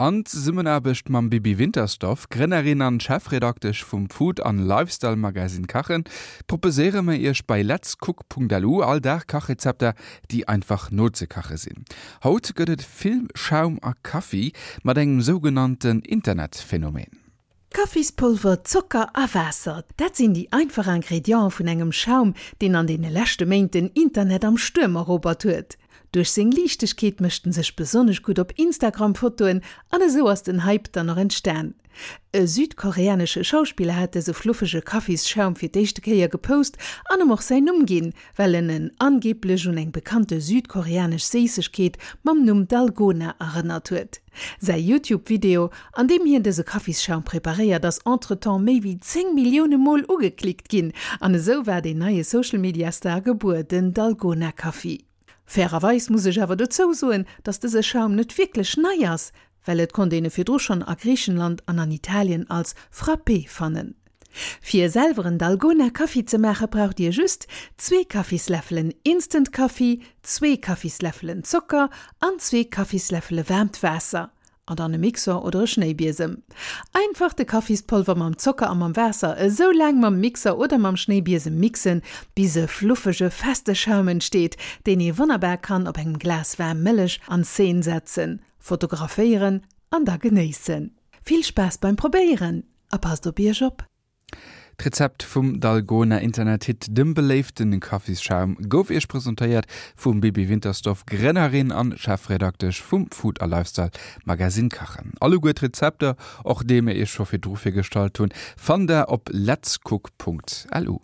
An Zesummenaarbecht mam Bibi Wintersdorf, Grënnerin an Chefredaktesch vum Food an Lifestyle Magazine Kachen, proposéiere mer iech bei letscook.lu all Dag Kachrezepter, déi einfach nozekache sinn. Haut gëtt et vill Schaum a Kaffi mat engem sougenannten Internetphänomen. Kaffispolver, Zocker a Waasser, dat sinn déi einfach Ingrediente vun engem Schaum, deen an deene leschte Méint den Internet am Stuerm erobert huet. Duerch seng Liichtegkeet mécht en sech besonnesch gutt op Instagram-Fotoen an esou ass den Hype dann och entstan. E südkoreanesche Schauspiller hat dëse fluffege Kaffisschaum fir d'éischte Kéier gepost an em och säin Numm ginn, well en en angeeblech un eng bekannte südkoreanesch Séissegkeet mam Numm Dalgona erënnert huet. Säi YouTube-Video, an deem hien dëse Kaffisschaum preparéiert, ass entretemps méi wéi 10 Millioune Mol ugeklickt ginn. An esou war deen neie Social-Media-Star gebuer, den Dalgona Kaffi. Fairerweis muss ech awer dozou soen, dass dëse Schaum net wierklech nei ass, well et konnt een e virdru schonn a Griichenland an an Italien als Frappé fannen. Fir selwer en Dalgona Kaffi ze maache braucht dir just zwee Kaffisläffelen Instant Kaffi, zwee Kaffisläffelen Zocker an zwee Kaffisläffele waarmt Waasser. An dann e Mixer oder e Schnéibiesem. Einfach de Kaffispolver mam Zocker a mam Waasser esou laang mam Mixer oder mam Schnéibiesem mixen, bis e fluffege, feste Schaum entsteet, deen ee wonnerbar kann op engem Glas waarm Mëllech an Szene setzen, fotograféieren an da genéissen. Vill Spaass beim Probéieren a passt op iech op! D'Rezept vum Dalgona Internethit, dem beléiften Kaffisschaum, gouf iech presentéiert vum Bibi Wintersdorf, Grënnerin an Chefredaktesch vum Food a Lifestyle Magazine Kachen. Alleguer d'Rezepter, och déi mir iech scho virdru virgestallt hunn, fannt der op letscook.lu.